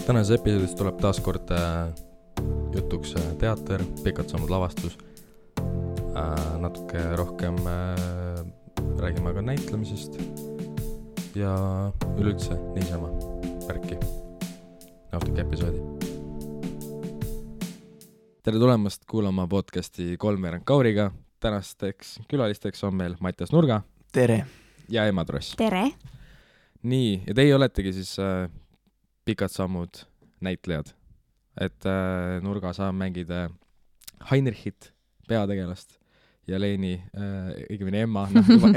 Tänases episoodis tuleb taas kord jutuks teater, pikalt saanud lavastus, natuke rohkem räägime ka näitlemisest ja üleüldse niisama värki. Nautige episoodi. Tere tulemast kuulama podcasti Kolmveerand Kauriga. Tänasteks külalisteks on meil Mattias Nurga. Tere. Ja Emma Tross. Tere. Nii, ja teie oletegi siis pikad sammud näitlejad. Et Nurga saab mängida Heinrichit, peategelast, ja Leeni, õigemini Emma,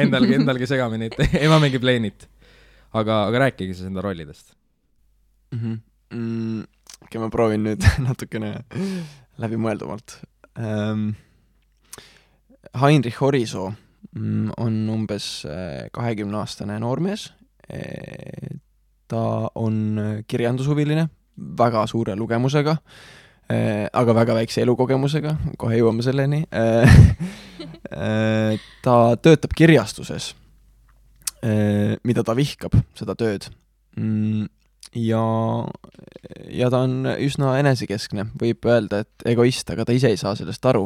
endalgi segamini, et Emma mängib Leenit. Aga rääkige siis enda rollidest. Okay, ma proovin nüüd natukene läbimõeldumalt. Heinrich Orisoo on umbes 20-aastane noormees. Ta on kirjandushuviline, väga suure lugemusega, aga väga väikse elukogemusega, kohe jõuame selleni. Ta töötab kirjastuses, mida ta vihkab, seda tööd. Ja ta on üsna enesekeskne, võib öelda, et egoist, aga ta ise ei saa sellest aru.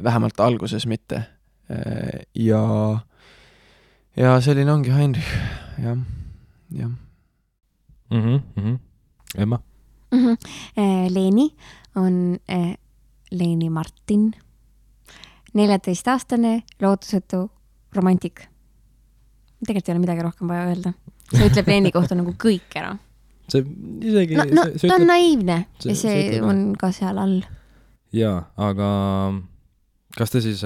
Vähemalt alguses mitte. Ja selline ongi Heinrich. Ja. Emma? Leeni on Leeni Martin, 14-aastane lootusetu romantik. Tegelikult ei ole midagi rohkem vaja öelda. See ütleb Leeni kohta nagu kõik ära. See isegi... Ta on naiivne ja see on ka seal all. Jaa, aga kas te siis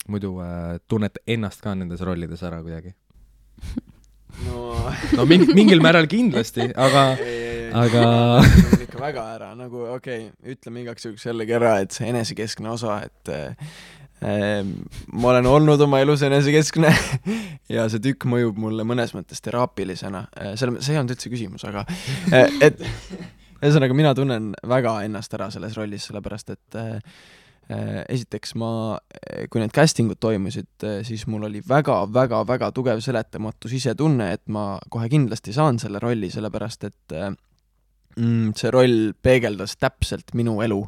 muidu tunnete ennast ka nendes rollides ära kuidagi? No mingil määral kindlasti, aga... ikka väga ära, nagu ütleme igaks juhuks jällegi ära, et see enesekeskne osa, et ma olen olnud oma elus enesekeskne ja see tükk mõjub mulle mõnes mõttes teraapilisena. See on üldse küsimus, aga et ühesõnaga mina tunnen väga ennast ära selles rollis, sellepärast et esiteks kui need castingud toimusid, siis mul oli väga tugev seletamatus ise tunne, et ma kohe kindlasti saan selle rolli, sellepärast et see roll peegeldas täpselt minu elu.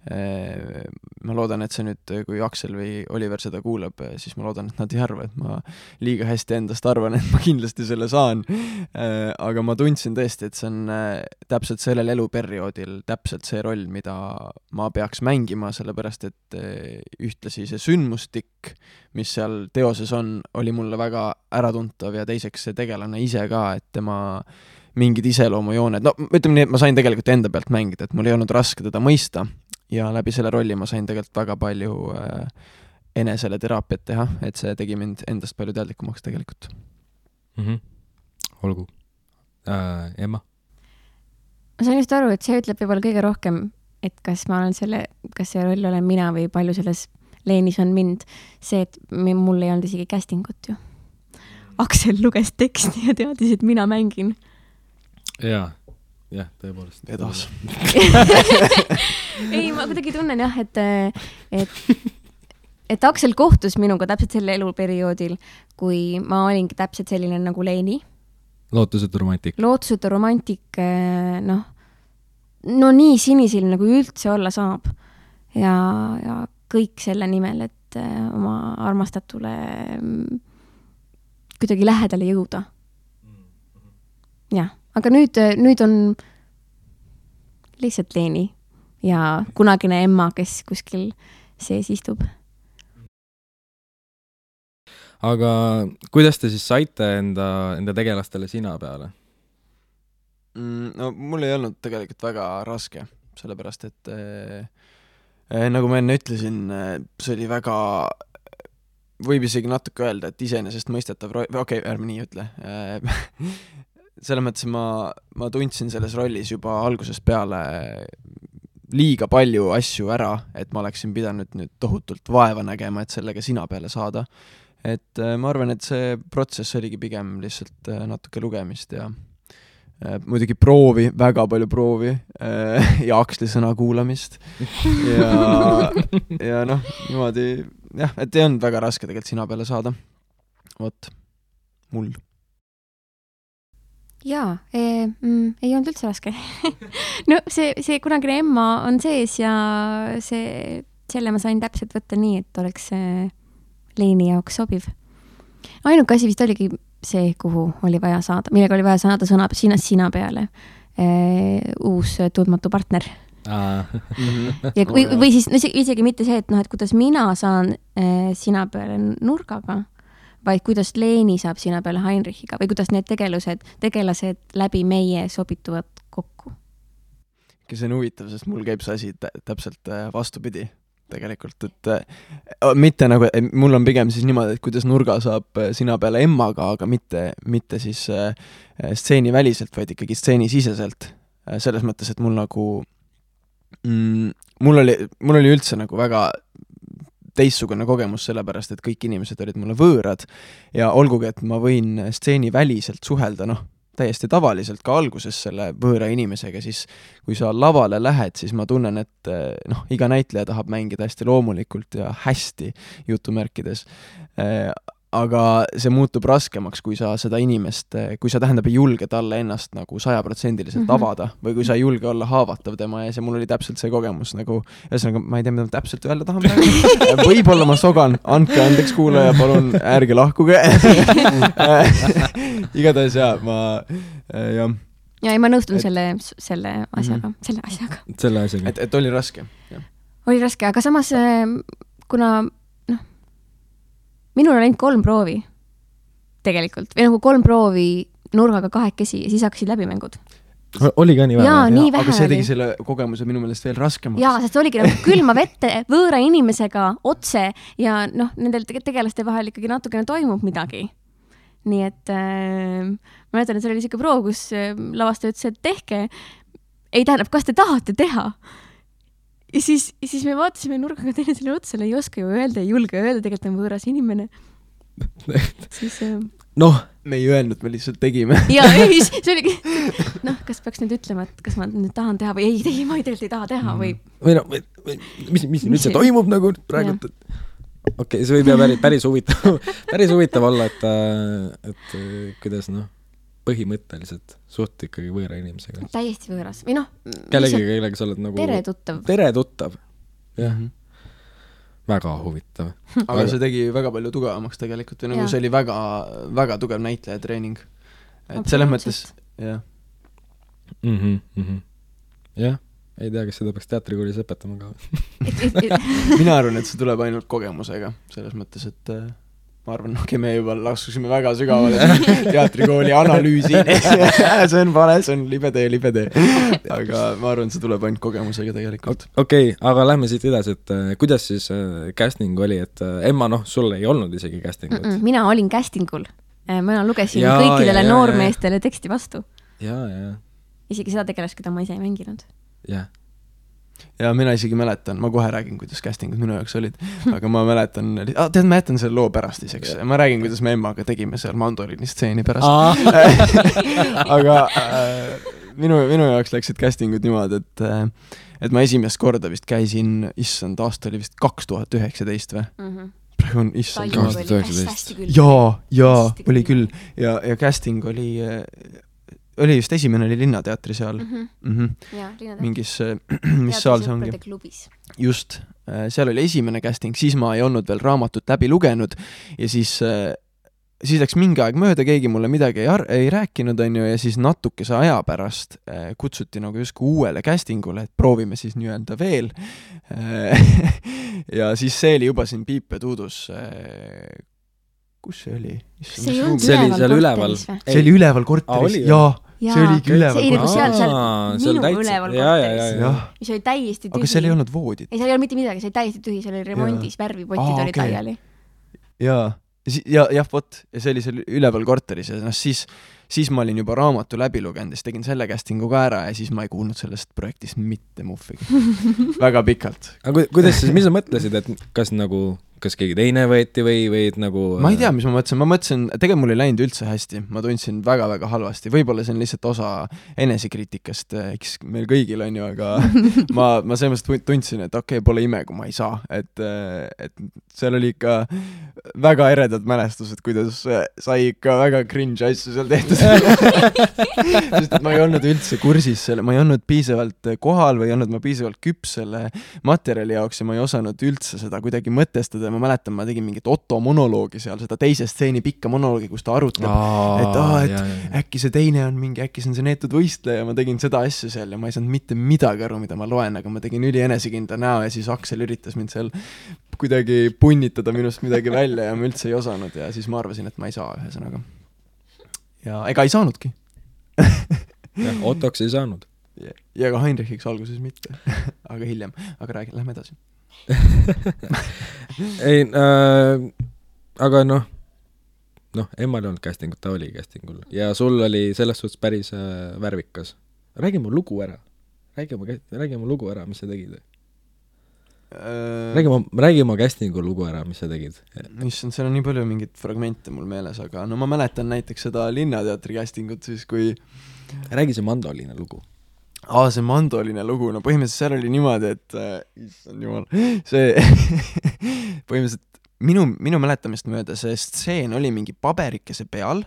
Ma loodan, et see nüüd, kui Aksel või Oliver seda kuulab, siis ma loodan, et nad ei arva, et ma liiga hästi endast arvan, et ma kindlasti selle saan. Aga ma tundsin tõesti, et see on täpselt sellel eluperioodil täpselt see roll, mida ma peaks mängima, sellepärast et ühtlasi see sündmustik, mis seal teoses on, oli mulle väga äratuntav ja teiseks see tegelane ise ka, et tema mingid iseloomujooned. No, ütleme nii, et ma sain tegelikult enda pealt mängida, et mul ei olnud raske teda mõista ja läbi selle rolli ma sain tegelikult väga palju enesele teraapiat teha, et see tegi mind endast palju teadlikumaks tegelikult. Olgu. Emma? Ma sain just aru, et see ütleb võib-olla kõige rohkem, et kas see roll olen mina või palju selles Leenis on mind. See, et mul ei olnud isegi castingut ju. Aksel luges teksti ja teadis, et mina mängin. Jah, tõepoolest. Edas. Ei, ma kuidagi tunnen jah, et Aksel kohtus minuga täpselt selle eluperioodil, kui ma olingi täpselt selline nagu Leeni. Lootusetu romantik. Lootusetu romantik, no nii sinisilm nagu üldse olla saab. Ja kõik selle nimel, et oma armastatule kuidagi lähedale jõuda. Jah. Aga nüüd on lihtsalt Leeni ja kunagine Emma, kes kuskil sees istub. Aga kuidas te siis saite enda tegelastele sina peale? No mul ei olnud tegelikult väga raske, sellepärast et nagu ma enne ütlesin, see oli väga, võib isegi natuke öelda, et iseenesest mõistetav ärme nii ütle. Selle mõttes ma tundsin selles rollis juba algusest peale liiga palju asju ära, et ma oleksin pidanud nüüd tohutult vaeva nägema, et sellega sina peale saada. Et ma arvan, et see protsess oligi pigem lihtsalt natuke lugemist ja muidugi väga palju proovi ja Aksli sõna kuulamist. Ja niimoodi, jah, et ei olnud väga raske tegelikult sina peale saada. Vot, mul. jaa, ei olnud üldse raske. No see kunagine Emma on sees ja selle ma sain täpselt võtta nii, et oleks Leini jaoks sobiv. Ainuke asi vist oligi see, kuhu oli vaja saada, millega oli vaja saada sõna sina peale. Uus tundmatu partner. Ja või siis isegi mitte see, et et kuidas mina saan sina peale nurgaga, vaid kuidas Leeni saab sina peale Heinrichiga või kuidas need tegelased läbi meie sobituvad kokku. See on huvitav, sest mul käib see asi täpselt vastupidi tegelikult, et mitte nagu, mul on pigem siis niimoodi, et kuidas nurga saab sina peale Emmaga, aga mitte siis stseeni väliselt, vaid ikkagi stseeni siseselt. Selles mõttes, et mul nagu mul oli üldse nagu väga teistsugune kogemus sellepärast, et kõik inimesed olid mulle võõrad ja olgugi, et ma võin stseeni väliselt suhelda, täiesti tavaliselt ka alguses selle võõra inimesega, siis kui sa lavale lähed, siis ma tunnen, et iga näitleja tahab mängida hästi loomulikult ja hästi jutumärkides. Aga see muutub raskemaks, kui sa seda inimest, kui sa ei julge talle ennast nagu 100% avada või kui sa ei julge olla haavatav tema ja see mul oli täpselt see kogemus nagu, ühesõnaga ma ei tea, mida ma täpselt öelda tahan praegu. Võib-olla ma sogan, andke andeks kuulaja, palun ärge lahkuge. Igatahes jah. Ja ma nõustun selle asjaga. Selle asjaga. Et oli raske. Oli raske, aga samas kuna minul on ainult 3 proovi tegelikult, või nagu 3 proovi nurgaga 2 ja siis hakkasid läbimängud. Oli ka nii vähe? Jaa, nii vähe aga see tegi oli. selle kogemuse minu meelest veel raskemaks. Jaa, sest oligi nagu külma vette võõra inimesega otse ja nendel tegelaste vahel ikkagi natukene toimub midagi. Nii et ma mäletan, et see oli selline proov, kus lavastaja ütles, et tehke. Ei tähendab, kas te tahate teha? Ja siis me vaatasime nurgaga teinesele otsale, ei oska ju öelda, ei julge öelda, tegelikult on võõras inimene. Siis me ei öelnud, me lihtsalt tegime. Ja see oligi, kas peaks nüüd ütlema, et kas ma nüüd tahan teha või ei, ma tegelikult ei taha teha või... Mis nüüd see toimub nagu praegu? Okei, see võib jää päris huvitav olla, et kuidas põhimõtteliselt suht ikkagi võõra inimesega. Täiesti võõras. Või kellega sa oled nagu... Tere tuttav. Jah. Väga huvitav. Aga see tegi väga palju tugevamaks tegelikult. Või nagu see oli väga, väga tugev näitleja treening. Et selles mõttes... Jah. Jah. Ei tea, kas seda peaks teatrikoolis õpetama ka. Mina arvan, et see tuleb ainult kogemusega. Selles mõttes, et... Ma arvan, me juba laskusime väga sügavale teatrikooli analüüsi. See on vale, see on libe tee. Aga ma arvan, see tuleb ainult kogemusega tegelikult. Okei, aga lähme siit edasi, et kuidas siis casting oli, et Emma, sul ei olnud isegi castingut? Mina olin castingul. Ma lugesin kõikidele noormeestele teksti vastu. Ja. Isegi seda tegelast, keda ma ise ei mänginud. Jah. Ja mina isegi mäletan, ma kohe räägin, kuidas castingud minu jaoks olid, aga ma mäletan, ma jätan selle loo pärast iseks, ma räägin, kuidas me Emmaga tegime seal mandoliini stseeni pärast. Aga minu jaoks läksid castingud niimoodi, et ma esimest korda vist käisin, issand, aasta oli vist 2019 või? Praegu on issand 2019. Jaa, oli küll. Ja casting oli just esimene oli Linnateatri seal. Mingis, mis saal see ongi? Just, seal oli esimene casting, siis ma ei olnud veel raamatut läbi lugenud ja siis läks mingi aeg mööda, keegi mulle midagi ei rääkinud, ja siis natukese aja pärast kutsuti nagu justkui uuele castingule, et proovime siis nii-öelda veel. Ja siis see oli juba siin Piip ja Tuudus. Kus see oli? See oli seal üleval. See oli üleval korteris, jaa. See oligi üleval korteris. Minu üleval korteris. Mis oli täiesti tühi. Aga seal ei olnud voodit. Ei, seal ei olnud mitte midagi, see oli täiesti tühi, seal oli remondis, värvipotid olid laiali. Jah, vot. Ja see oli seal üleval korteris ja siis ma olin juba raamatu läbi lugenud ja siis tegin selle castingu ka ära ja siis ma ei kuulnud sellest projektist mitte muffigi. Väga pikalt. Aga kuidas siis, mis sa mõtlesid, et kas nagu kas keegi teine võeti või et nagu ma ei tea, mis ma mõtlesin, tegelikult mul ei läinud üldse hästi, ma tundsin väga-väga halvasti, võib-olla see on lihtsalt osa enesekriitikast, eks meil kõigil on ju, aga ma selles mõttes tundsin, et okei, pole ime, kui ma ei saa, et seal oli ikka väga eredad mälestused, kuidas sai ikka väga cringe asju seal tehtud. Sest et ma ei olnud üldse kursis selle, ma ei olnud piisavalt kohal või ei olnud ma piisavalt küps selle materjali jaoks ja ma ei osanud üldse seda kuidagi mõtestada. Ma mäletan, ma tegin mingit Otto monoloogi seal, seda teise stseeni pikka monoloogi, kus ta arutleb, äkki see teine on mingi, äkki see on see neetud võistleja, ma tegin seda asja seal ja ma ei saanud mitte midagi aru, mida ma loen, aga ma tegin üli enesekindla näo ja siis Aksel üritas mind seal kuidagi punnitada minust midagi välja ja ma üldse ei osanud ja siis ma arvasin, et ma ei saa ühesõnaga. Ja ega ei saanudki. jah, Ottoks ei saanud. Ja ka Heinrichiks alguses mitte, aga hiljem. Aga räägi, lähme edasi. ei, aga Emmal ei olnud castingut, ta oli castingul ja sul oli selles suhtes päris värvikas. Räägi mu lugu ära, mis sa tegid. Räägi oma castingu lugu ära, mis sa tegid. Issand, seal on nii palju mingit fragmente mul meeles, aga ma mäletan näiteks seda Linnateatri castingut siis, kui räägi see mandoliine lugu. See mandoliine lugu, põhimõtteliselt seal oli niimoodi, et issand jumal, see põhimõtteliselt minu mäletamist mööda see stseen oli mingi paberikese peal,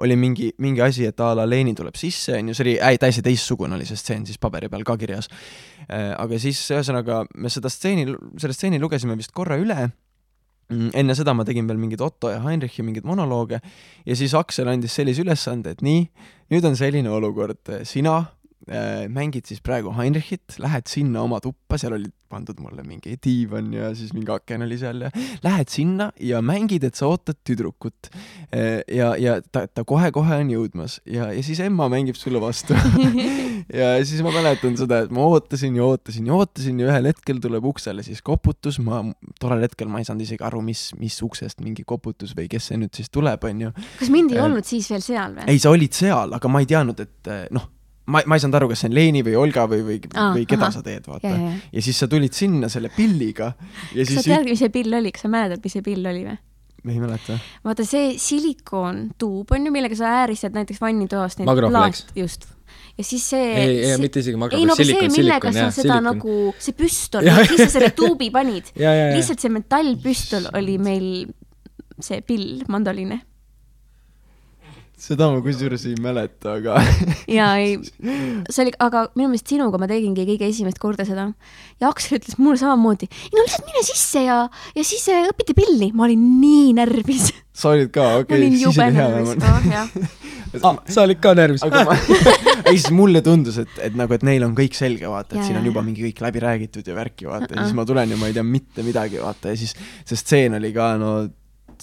oli mingi asi, et a la Leeni tuleb sisse, see oli täiesti teistsugune oli see stseen siis paberi peal ka kirjas. Aga siis ühesõnaga me selle stseeni lugesime vist korra üle, enne seda ma tegin veel mingid Otto ja Heinrichi mingid monolooge ja siis Aksel andis sellise ülesande, et nii, nüüd on selline olukord, sina mängid siis praegu Heinrichit, lähed sinna oma tuppa, seal oli pandud mulle mingi diivan ja siis mingi aken oli seal ja lähed sinna ja mängid, et sa ootad tüdrukut ja ta kohe-kohe on jõudmas ja siis Emma mängib sulle vastu ja siis ma mäletan seda, et ma ootasin ja ühel hetkel tuleb uksele siis koputus, tollel hetkel ma ei saanud isegi aru, mis uksest mingi koputus või kes see nüüd siis tuleb, on ju. Kas mind ei olnud siis veel seal või? Ei, sa olid seal, aga ma ei teadnud, et ma ei saanud aru, kas see on Leeni või Olga või keda sa teed, vaata. Ja siis sa tulid sinna selle pilliga. Ja siis kas sa tead, mis see pill oli? Kas sa mäletad, mis see pill oli või? Ei mäleta. Vaata, see silikoontuub on ju, millega sa ääristad näiteks vannitoast. Magroflex. Just. Ja siis see... Ei, mitte isegi magroflex. Ei, no see, millega sa seda nagu... See püstol, siis sa selle tuubi panid. Lihtsalt see metallpüstol oli meil see pill, mandoliine. Seda ma kusjuures ei mäleta, aga... Jaa, ei. See oli, aga minu meelest sinuga ma tegingi kõige esimest korda seda. Ja Aksel ütles mulle samamoodi, lihtsalt mine sisse ja siis õpite pilli. Ma olin nii närvis. Sa olid ka, okei, siis oli hea. Sa olid ka närvis. Ei, siis mulle tundus, et neil on kõik selge, vaata, et siin on juba mingi kõik läbi räägitud ja värki, vaata. Ja siis ma tulen ja ma ei tea mitte midagi, vaata. Ja siis see stseen oli ka,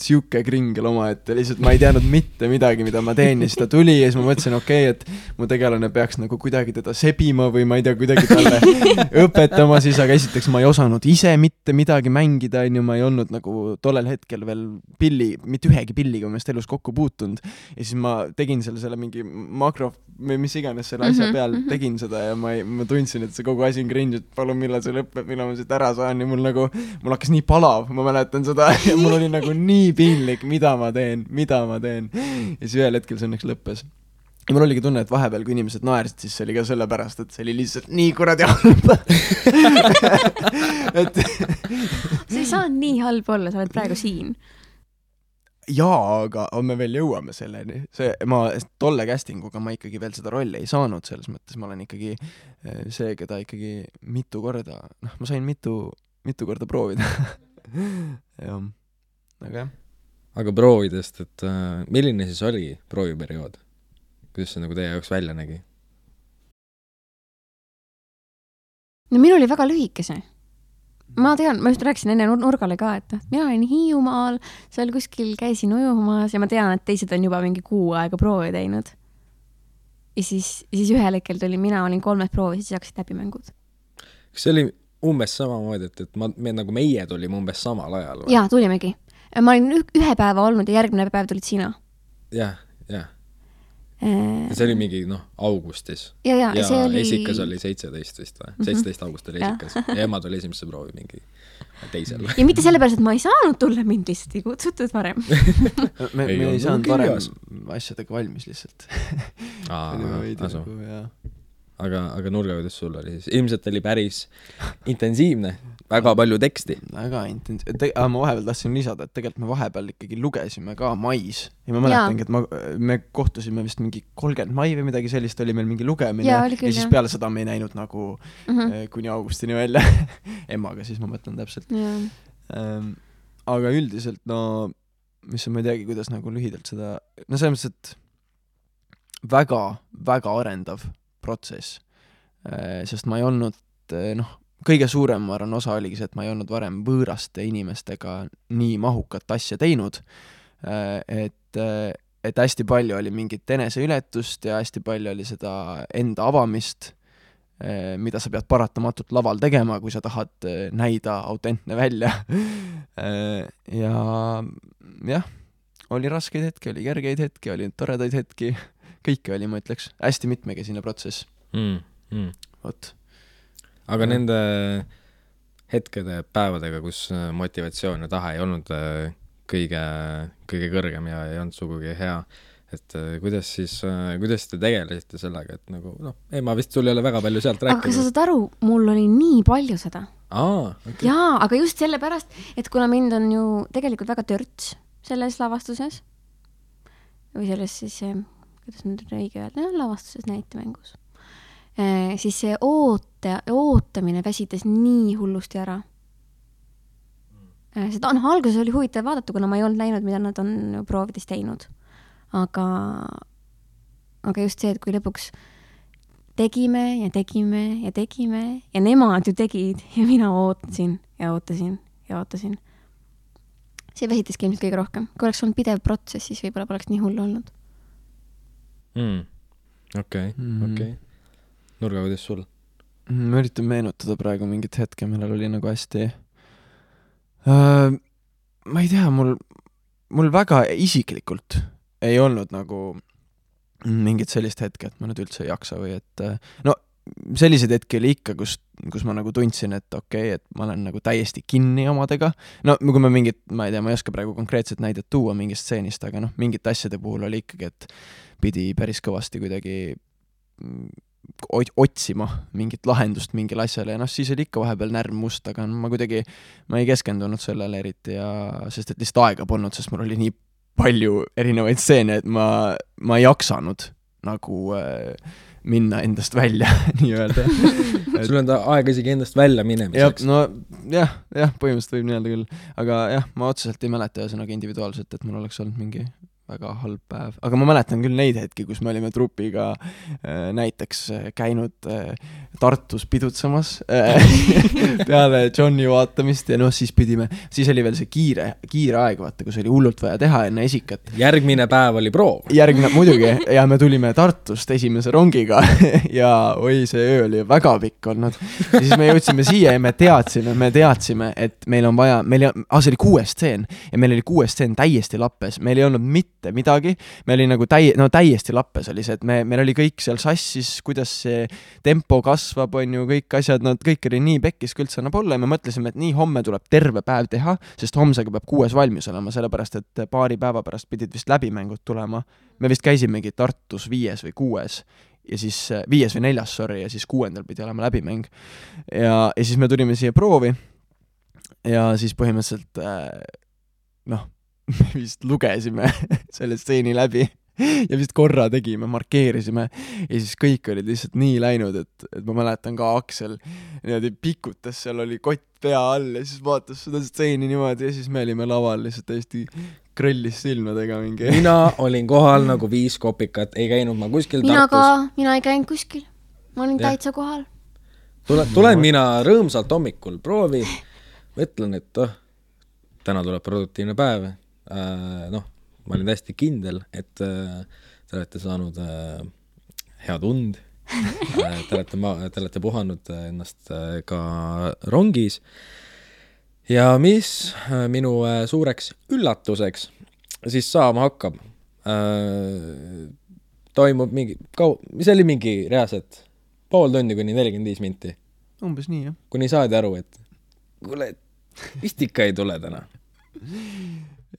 siuke kringel oma, et lihtsalt ma ei teadnud mitte midagi, mida ma teen ja siis ta tuli ja siis ma mõtlesin, et mu tegelane peaks nagu kuidagi teda sebima või ma ei tea, kuidagi talle õpetama siis, aga esiteks ma ei osanud ise mitte midagi mängida, ma ei olnud nagu tollel hetkel veel mitte ühegi pilliga ma elus kokku puutunud ja siis ma tegin selle mingi makro või mis iganes selle asja peal tegin seda ja ma tundsin, et see kogu asi on cringe, et palun millal see lõpeb, millal ma siit ära saan ja mul hakkas nii palav, ma mäletan seda ja mul oli nagu nii piinlik, mida ma teen ja siis ühel hetkel see õnneks lõppes ja mul oligi tunne, et vahepeal kui inimesed naersid, siis see oli ka sellepärast, et see oli lihtsalt nii kuradi halb see ei saa nii halb olla, sa oled praegu siin jaa, aga me veel jõuame selleni ma tolle castinguga ma ikkagi veel seda rolli ei saanud, selles mõttes ma olen ikkagi see, keda ikkagi mitu korda ma sain mitu korda proovida jah aga proovidest, et milline siis oli prooviperiood? Kuidas see nagu teie jaoks välja nägi? No minul oli väga lühikese. Ma tean, ma just rääkisin enne Nurgale ka, et mina olin Hiiumaal, seal kuskil käisin ujumas ja ma tean, et teised on juba mingi kuu aega proovi teinud. Ja siis ühel hetkel tuli, mina olin 3 proovi, siis hakkasid läbimängud. Kas see oli umbes samamoodi, et nagu meie tulime umbes samal ajal? Jaa, tulimegi. Ma olin 1 päeva olnud ja järgmine päev tulid sina. Jah. see oli mingi, augustis. ja see oli... esikas oli 17 vist või? 17 august oli esikas. Ja ema tuli esimesse proovi mingi teisel. Ja mitte sellepärast, et ma ei saanud tulla, mind lihtsalt ei kutsutud varem. me ei saanud varem asjadega valmis lihtsalt. Aga Nurga, kuidas sul oli siis? Ilmselt oli päris intensiivne, väga palju teksti. Väga intensiivne. Ma vahepeal tahtsin lisada, et tegelikult me vahepeal ikkagi lugesime ka mais. Ja ma mäletangi, et me kohtusime vist mingi 30 mai või midagi sellist, oli meil mingi lugemine. Ja siis peale seda me ei näinud nagu kuni augustini välja. Emaga siis ma mõtlen täpselt. Aga üldiselt, mis on, ma ei teagi, kuidas nagu lühidalt seda... selles mõttes, et väga, väga arendav protsess, sest ma ei olnud, kõige suurem, ma arvan, osa oligi see, et ma ei olnud varem võõraste inimestega nii mahukat asja teinud, et hästi palju oli mingit eneseületust ja hästi palju oli seda enda avamist, mida sa pead paratamatult laval tegema, kui sa tahad näida autentne välja. Ja oli raskeid hetki, oli kergeid hetki, oli toredaid hetki, kõike oli, ma ütleks, hästi mitmekesine protsess. Vot. Aga nende hetkede, päevadega, kus motivatsioon ja tahe ei olnud kõige kõrgem ja ei olnud sugugi hea, et kuidas te tegelesite sellega, et nagu, ema vist sul ei ole väga palju sealt rääkida. Aga sa saad aru, mul oli nii palju seda. Okay. Jaa, aga just sellepärast, et kuna mind on ju tegelikult väga törts selles lavastuses, või selles siis, kuidas nüüd õige öelda, lavastuses näitemängus, siis see ootamine väsitas nii hullusti ära. Seda alguses oli huvitav vaadata, kuna ma ei olnud näinud, mida nad on proovides teinud. Aga just see, et kui lõpuks tegime ja nemad ju tegid ja mina ootasin. See väsitaski ilmselt kõige rohkem. Kui oleks olnud pidev protsess, siis võib-olla poleks nii hullu olnud. Okei. Nurga, kuidas sul? Ma üritan meenutada praegu mingit hetke, millel oli nagu hästi... ma ei tea, mul väga isiklikult ei olnud nagu mingit sellist hetke, et ma nüüd üldse ei jaksa või et... sellised hetki oli ikka, kus ma nagu tundsin, et okei, et ma olen nagu täiesti kinni omadega. Kui ma mingit, ma ei tea, ma ei oska praegu konkreetset näidet tuua mingist stseenist, aga mingit asjade puhul oli ikkagi, et pidi päris kõvasti kuidagi otsima mingit lahendust mingile asjale ja siis oli ikka vahepeal närv must, aga ma ei keskendunud sellele eriti sest et lihtsalt aega polnud, sest mul oli nii palju erinevaid stseene, et ma ei jaksanud nagu minna endast välja, nii öelda. Sul on aega isegi endast välja minemiseks. Põhimõtteliselt võib nii öelda küll. Aga ma otseselt ei mäleta ühesõnaga individuaalselt, et mul oleks olnud mingi väga halb päev. Aga ma mäletan küll neid hetki, kus me olime trupiga näiteks käinud Tartus pidutsamas peale Johnny vaatamist ja siis oli veel see kiire aeg, vaata, kus oli hullult vaja teha enne esikat. Järgmine päev oli proov. Muidugi, ja me tulime Tartust esimese rongiga ja see öö oli väga pikk olnud. Ja siis me jõudsime siia ja me teadsime, et meil on vaja, see oli 6 stseen ja meil oli 6 stseen täiesti lappes, meil ei olnud mitte midagi, me oli nagu täiesti lappes oli see, et meil oli kõik seal sassis, kuidas see tempo kasvab, on ju, kõik asjad, kõik oli nii pekkis, kui üldse annab olla ja me mõtlesime, et nii homme tuleb terve päev teha, sest homsega peab 6 valmis olema, sellepärast, et paari päeva pärast pidid vist läbimängud tulema. Me vist käisimegi Tartus 5 või 6 ja siis 5 või 4, ja siis 6. pidi olema läbimäng. Ja siis me tulime siia proovi ja siis põhimõtteliselt me vist lugesime selle stseeni läbi ja vist korra tegime, markeerisime ja siis kõik olid lihtsalt nii läinud, et ma mäletan ka Aksel niimoodi pikutas, seal oli kott pea all ja siis vaatas seda stseeni niimoodi ja siis me olime laval lihtsalt täiesti krõllis silmadega mingi. Mina olin kohal nagu 5 kopikat, ei käinud ma kuskil Tartus. Mina ei käinud kuskil, ma olin täitsa kohal. Tulen mina rõõmsalt hommikul proovi, mõtlen, et täna tuleb produktiivne päev. Ma olin täiesti kindel, et te olete saanud head und, te olete puhanud ennast ka rongis ja mis minu suureks üllatuseks siis saama hakkab. toimub mingi mis oli mingi reaalselt pool tundi kuni 45 minti. Umbes nii, jah. Kuni saadi aru, et kuule, vist ikka ei tule täna.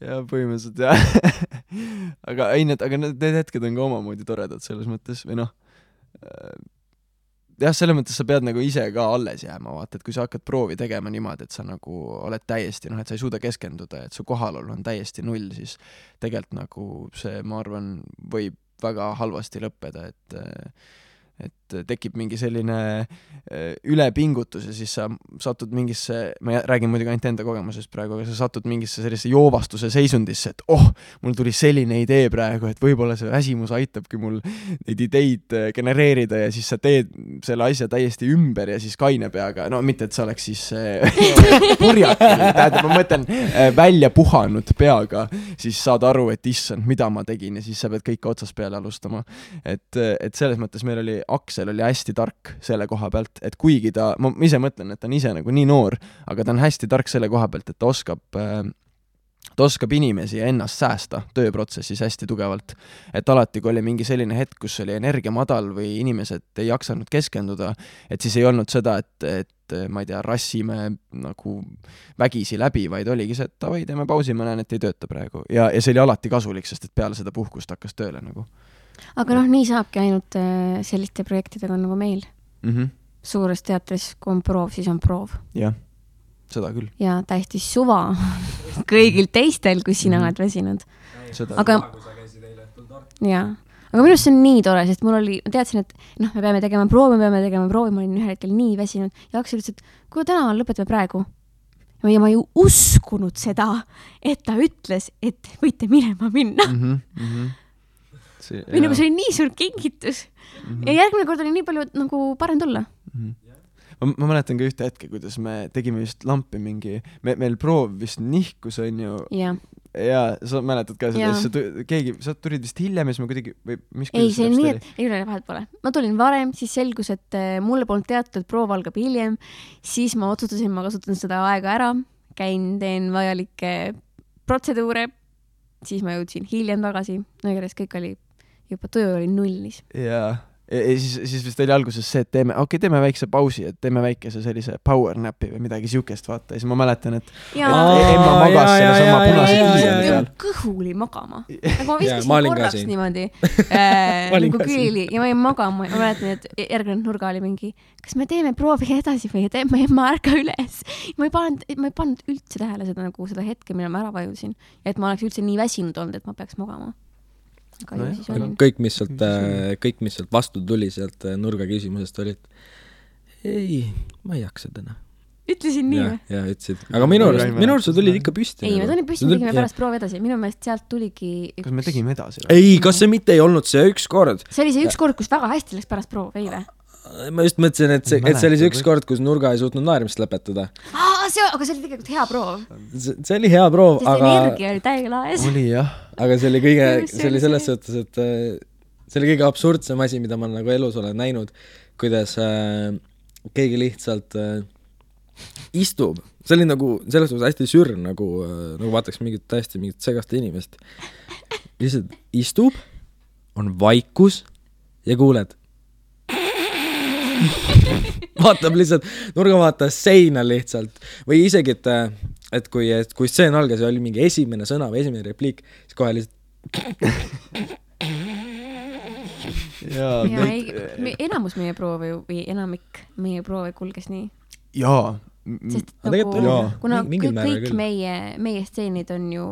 Ja põhimõtteliselt, jah. aga need hetked on ka omamoodi toredad selles mõttes, või noh, jah, selles mõttes sa pead nagu ise ka alles jääma, vaata, et kui sa hakkad proovi tegema niimoodi, et sa nagu oled täiesti, et sa ei suuda keskenduda, et su kohalolu on täiesti null, siis tegelikult nagu see, ma arvan, võib väga halvasti lõppeda, et tekib mingi selline ülepingutus ja siis sa satud mingisse, ma räägin muidugi ainult enda kogemusest praegu, aga sa satud mingisse sellise joovastuse seisundisse, et mul tuli selline idee praegu, et võib-olla see väsimus aitabki mul neid ideid genereerida ja siis sa teed selle asja täiesti ümber ja siis kaine peaga, no mitte, et sa oleks siis purjakil, tähendab, ma mõtlen välja puhanud peaga, siis saad aru, et issand, mida ma tegin ja siis sa pead kõik otsast peale alustama. Et selles mõttes meil oli Aksel oli hästi tark selle koha pealt, et kuigi ma ise mõtlen, et ta on ise nagu nii noor, aga ta on hästi tark selle koha pealt, et ta oskab inimesi ja ennast säästa tööprotsessis hästi tugevalt. Et alati, kui oli mingi selline hetk, kus oli energia madal või inimesed ei jaksanud keskenduda, et siis ei olnud seda, et ma ei tea, rassime nagu vägisi läbi, vaid oligi see, et davai, teeme pausi, ma näen, et ei tööta praegu. Ja see oli alati kasulik, sest et peale seda puhkust hakkas tööle nagu. Aga nii saabki ainult selliste projektidega nagu meil. Suures teatris, kui on proov, siis on proov. Jah, seda küll. Ja täiesti suva kõigil teistel, kui sina oled väsinud. Aga minu arust see on nii tore, sest ma teadsin, et me peame tegema proovi, ma olin ühel hetkel nii väsinud ja Aksel ütles, et kui täna lõpetame praegu. Ja ma ju uskunud seda, et ta ütles, et võite minema minna. Või nagu see oli nii suur kingitus. Ja järgmine kord oli nii palju nagu parem tulla. Ma mäletan ka ühte hetke, kuidas me tegime vist lampi mingi, meil proov vist nihkus on ju. Ja sa mäletad ka seda, sa tulid vist hiljem ja siis ma kuidagi, või mis ei, see nii, et ei ole vahet pole. Ma tulin varem, siis selgus, et mulle polnud teatud, et proov algab hiljem, siis ma otsustasin, ma kasutan seda aega ära, teen vajalikke protseduure, siis ma jõudsin hiljem tagasi, järjest kõik oli juba töö oli nullis. Ja siis vist oli alguses see, et teeme väikse pausi, et teeme väikese sellise power napi või midagi siukest, vaata. Ja siis ma mäletan, et emma magas selle sama punase kiiseni peal. Kõhuli magama. Nagu ma viskasin korraks niimoodi. Nagu külili ja ma jäin magama. Ma mäletan, et järgnenud nurga oli mingi, kas me teeme proovi edasi või teeme emma ärka üles. Ma ei pannud üldse tähele seda hetke, mille ma ära vajusin. Ja et ma oleks üldse nii väsinud olnud, et ma peaks magama. Kõik, mis sealt vastu tuli sealt nurga küsimusest oli, et ei, ma ei jaksa täna. Ütlesin nii või? Ja ütlesid. Aga minu arust sa tulid ikka püsti. Ei, me tulin püsti, me tegime pärast proovi edasi. Minu meelest sealt tuligi Kas me tegime edasi? Ei, kas see mitte ei olnud see üks kord? See oli see üks kord, kus väga hästi läks pärast proov, ei või? Ma just mõtlesin, et see oli see üks kord, kus nurga ei suutnud naerimist lõpetada. Aga see oli tegelikult hea proov. See oli hea proov, aga energia oli täiega laes. Oli jah. Aga see oli selles suhtes, et see oli kõige absurdsem asi, mida ma nagu elus olen näinud, kuidas keegi lihtsalt istub. See oli nagu selles suhtes hästi sürr, nagu vaataks mingit segast inimest. Lihtsalt istub, on vaikus ja kuuled. Vaatab lihtsalt, nurga vaatas seina lihtsalt. Või isegi, et kui stseen algas ja oli mingi esimene sõna või esimene repliik, siis kohe lihtsalt enamus meie proove või enamik meie proove kulges nii. Jaa. Sest kuna kõik meie stseenid on ju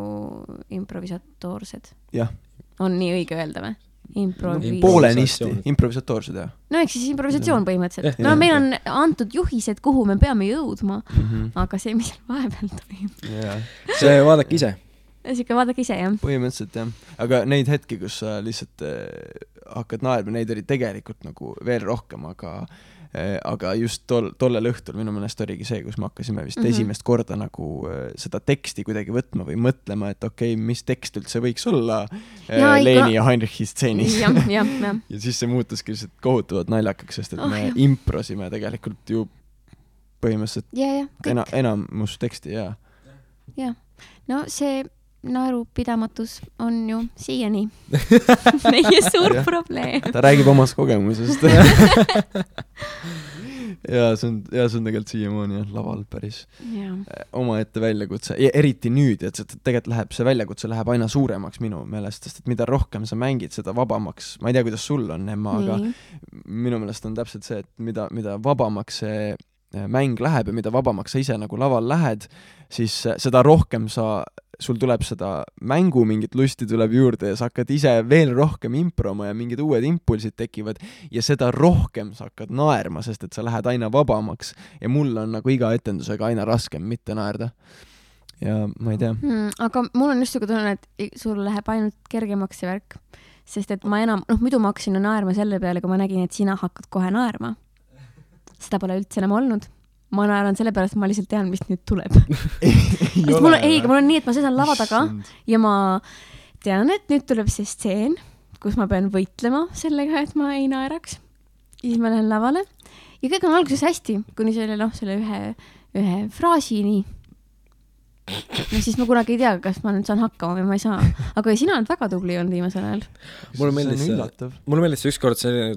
improvisatoorsed. Jah. On nii õige öelda või? Poolenisti, improvisatoorsed, jah. No eks siis improvisatsioon põhimõtteliselt. No meil on antud juhised, kuhu me peame jõudma, aga see, mis vahepeal toimub. See vaadake ise. Siuke vaadake ise, jah. Põhimõtteliselt, jah. Aga neid hetki, kus sa lihtsalt hakkad naerma, neid oli tegelikult nagu veel rohkem, aga just tollel õhtul minu meelest oligi see, kus me hakkasime vist esimest korda nagu seda teksti kuidagi võtma või mõtlema, et okei, mis tekst üldse võiks olla Leeni ja Heinrichi stseenis. Ja siis see muutuski lihtsalt kohutavalt naljakaks, sest et me improsime tegelikult ju põhimõtteliselt enamus teksti, ja. No see naerupidamatus on ju siiani meie suur probleem. Ta räägib omast kogemusest. ja see on tegelikult siiamaani laval päris omaette väljakutse. Ja eriti nüüd, et tegelikult see väljakutse läheb aina suuremaks minu meelest, sest et mida rohkem sa mängid, seda vabamaks, ma ei tea, kuidas sul on, Emma, aga minu meelest on täpselt see, et mida vabamaks see mäng läheb ja mida vabamaks sa ise nagu laval lähed, siis seda rohkem sul tuleb seda mängu mingit lusti tuleb juurde ja sa hakkad ise veel rohkem improma ja mingid uued impulsid tekivad ja seda rohkem sa hakkad naerma, sest et sa lähed aina vabamaks ja mul on nagu iga etendusega aina raskem mitte naerda. Ja ma ei tea. Aga mul on just siuke tunne, et sul läheb ainult kergemaks see värk, sest et ma enam, muidu ma hakkasin naerma selle peale, kui ma nägin, et sina hakkad kohe naerma. Seda pole üldse enam olnud. Ma naeran selle pärast, et ma lihtsalt tean, mis nüüd tuleb. mul on nii, et ma seisan lava taga ja ma tean, et nüüd tuleb see stseen, kus ma pean võitlema sellega, et ma ei naeraks. Ja siis ma lähen lavale ja kõik on alguses hästi, kuni selle ühe fraasini. No siis ma kunagi ei tea, kas ma nüüd saan hakkama või ma ei saa. Aga sina oled väga tubli olnud viimasel ajal. Mulle meeldis ükskord see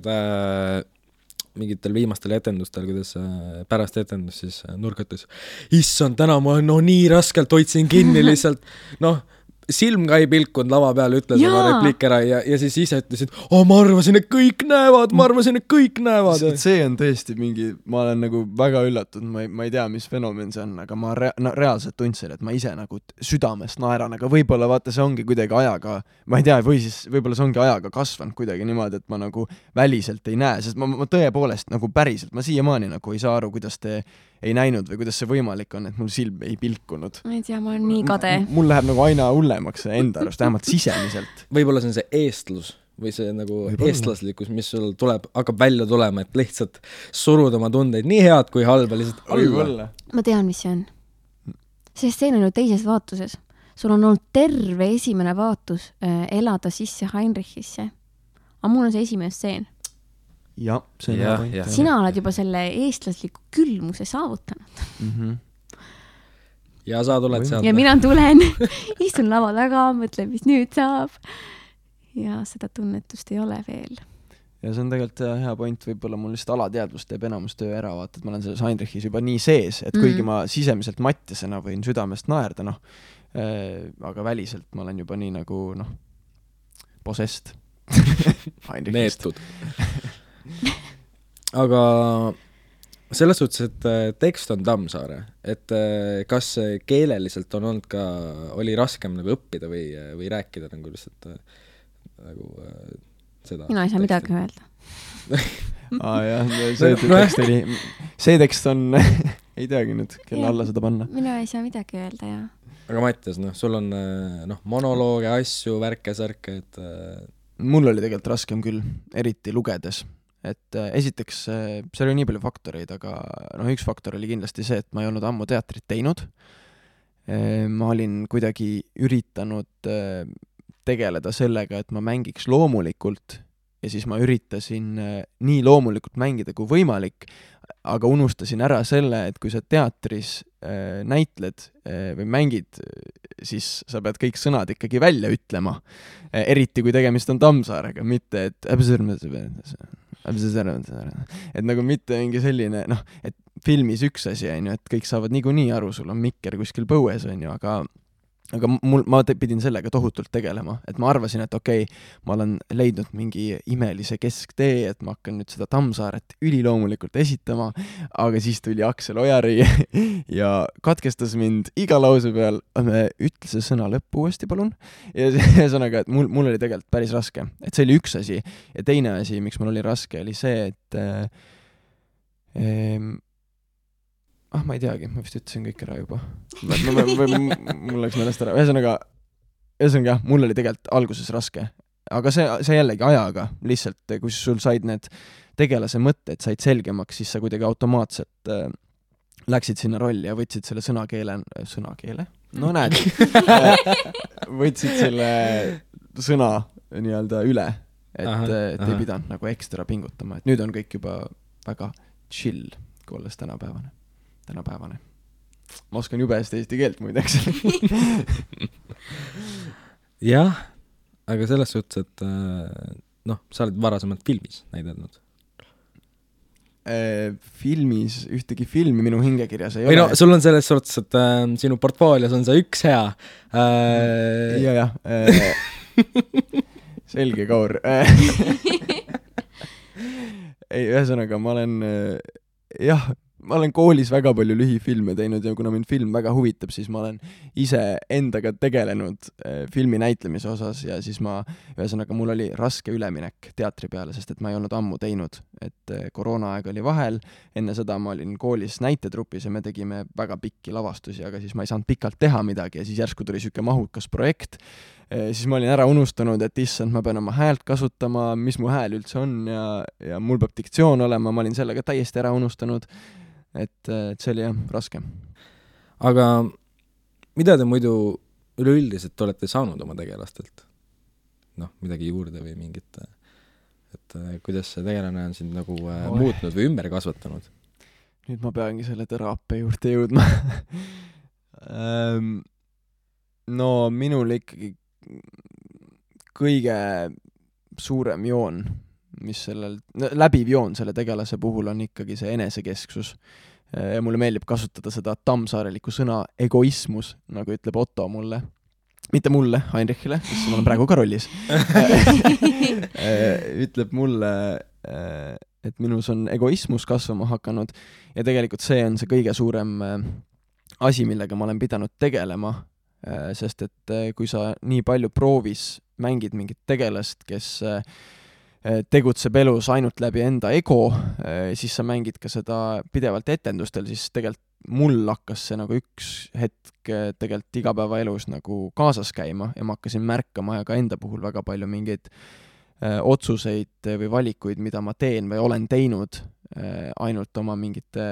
mingitel viimastel etendustel, kuidas pärast etendus siis nurgates, issand, täna ma nii raskelt hoidsin kinni lihtsalt, silm ka ei pilkunud lava peal, ütles oma repliik ära ja siis ise ütlesid, ma arvasin, et kõik näevad. See on tõesti ma olen nagu väga üllatunud, ma ei tea, mis fenomen see on, aga ma reaalselt tundsin, et ma ise nagu südamest naeran, aga võib-olla vaata, see ongi kuidagi ajaga, ma ei tea, või siis võib-olla see ongi ajaga kasvanud kuidagi niimoodi, et ma nagu väliselt ei näe, sest ma tõepoolest nagu päriselt, ma siiamaani nagu ei saa aru, kuidas te ei näinud või kuidas see võimalik on, et mul silm ei pilkunud. Ma ei tea, ma olen nii kade. Mul läheb nagu aina hullemaks enda arust, vähemalt sisemiselt. Võib-olla see on see eestlus või see nagu eestlaslikkus, mis sul hakkab välja tulema, et lihtsalt surud oma tundeid nii head kui halba lihtsalt alla. Ma tean, mis see on. See stseen on ju teises vaatuses. Sul on olnud terve esimene vaatus elada sisse Heinrichisse. Aga mul on see esimene stseen. Ja, see on point. Sina oled juba selle eestlasliku külmuse saavutanud. Ja sa tuled sealt. Ja mina tulen, istun lava taga, mõtlen, mis nüüd saab. Ja seda tunnetust ei ole veel. Ja see on tegelikult hea point, võib-olla mul lihtsalt alateadvus teeb enamus töö ära, vaata, et ma olen selles Heinrichis juba nii sees, et kuigi ma sisemiselt mattisena võin südamest naerda, aga väliselt ma olen juba nii nagu, possessed. Neetud. Aga selles suhtes, et tekst on Tammsaare, et kas keeleliselt on olnud ka, oli raskem nagu õppida või rääkida nagu lihtsalt nagu seda? Mina ei saa midagi öelda. see tekst on, ei teagi nüüd, kelle alla seda panna. Mina ei saa midagi öelda, jah. Aga Mattias, sul on monolooge, asju, värke-särke, et mul oli tegelikult raskem küll, eriti lugedes. Et esiteks, seal oli nii palju faktoreid, aga üks faktor oli kindlasti see, et ma ei olnud ammu teatrit teinud. Ma olin kuidagi üritanud tegeleda sellega, et ma mängiks loomulikult ja siis ma üritasin nii loomulikult mängida kui võimalik, aga unustasin ära selle, et kui sa teatris näitled või mängid, siis sa pead kõik sõnad ikkagi välja ütlema. Eriti kui tegemist on Tammsaarega, mitte et nagu mitte mingi selline, et filmis üks asi on ju, et kõik saavad niikuinii aru, sul on mikker kuskil põues on ju, aga ma pidin sellega tohutult tegelema, et ma arvasin, et okei, ma olen leidnud mingi imelise kesktee, et ma hakkan nüüd seda Tammsaaret üliloomulikult esitama, aga siis tuli Aksel Ojari ja katkestas mind iga lause peal, ütle see sõna lõppu uuesti, palun. Ja ühesõnaga, et mul oli tegelikult päris raske, et see oli üks asi ja teine asi, miks mul oli raske, oli see, et ma ei teagi, ma vist ütlesin kõik ära juba. Mul läks meelest ära. Ühesõnaga, mul oli tegelikult alguses raske. Aga see jällegi ajaga, lihtsalt, kui sul said need tegelase mõtted, said selgemaks, siis sa kuidagi automaatselt läksid sinna rolli ja võtsid selle sõnakeele? No näed. Võtsid selle sõna nii-öelda üle, et ei pidanud nagu ekstra pingutama. Et nüüd on kõik juba väga chill, kui olles tänapäevane. ma oskan jube hästi eesti keelt muideks. jah, aga selles suhtes, et sa oled varasemalt filmis näidelnud. Filmis, ühtegi filmi minu hingekirjas ei või ole. Sul on selles suhtes, et sinu portfoolios on see üks hea. jah. Selge, Kaur. ei, ühesõnaga, ma olen koolis väga palju lühifilme teinud ja kuna mind film väga huvitab, siis ma olen ise endaga tegelenud filmi näitlemise osas ja siis ühesõnaga, mul oli raske üleminek teatri peale, sest et ma ei olnud ammu teinud, et koroonaaeg oli vahel, enne seda ma olin koolis näitetrupis ja me tegime väga pikki lavastusi, aga siis ma ei saanud pikalt teha midagi ja siis järsku tuli siuke mahukas projekt, siis ma olin ära unustanud, et issand, ma pean oma häält kasutama, mis mu hääl üldse on ja mul peab diktsioon olema, ma olin sellega täiesti ära unustanud. Et see oli jah, raske. Aga mida te muidu üleüldiselt olete saanud oma tegelastelt? Midagi juurde või mingit, et kuidas see tegelane on sind nagu muutnud või ümber kasvatanud? Nüüd ma peangi selle teraapia juurde jõudma. No minul ikkagi kõige suurem joon, mis läbiv joon selle tegelase puhul on ikkagi see enesekesksus. Ja mulle meeldib kasutada seda tammsaarelikku sõna egoismus, nagu ütleb Otto mulle. Mitte mulle, Heinrichile, sest ma olen praegu ka rollis. Ütleb mulle, et minus on egoismus kasvama hakanud ja tegelikult see on see kõige suurem asi, millega ma olen pidanud tegelema, sest et kui sa nii palju proovis mängid mingit tegelast, kes tegutseb elus ainult läbi enda ego, siis sa mängid ka seda pidevalt etendustel, siis tegelikult mul hakkas see nagu üks hetk tegelikult igapäevaelus nagu kaasas käima ja ma hakkasin märkama ja ka enda puhul väga palju mingeid otsuseid või valikuid, mida ma teen või olen teinud ainult oma mingite,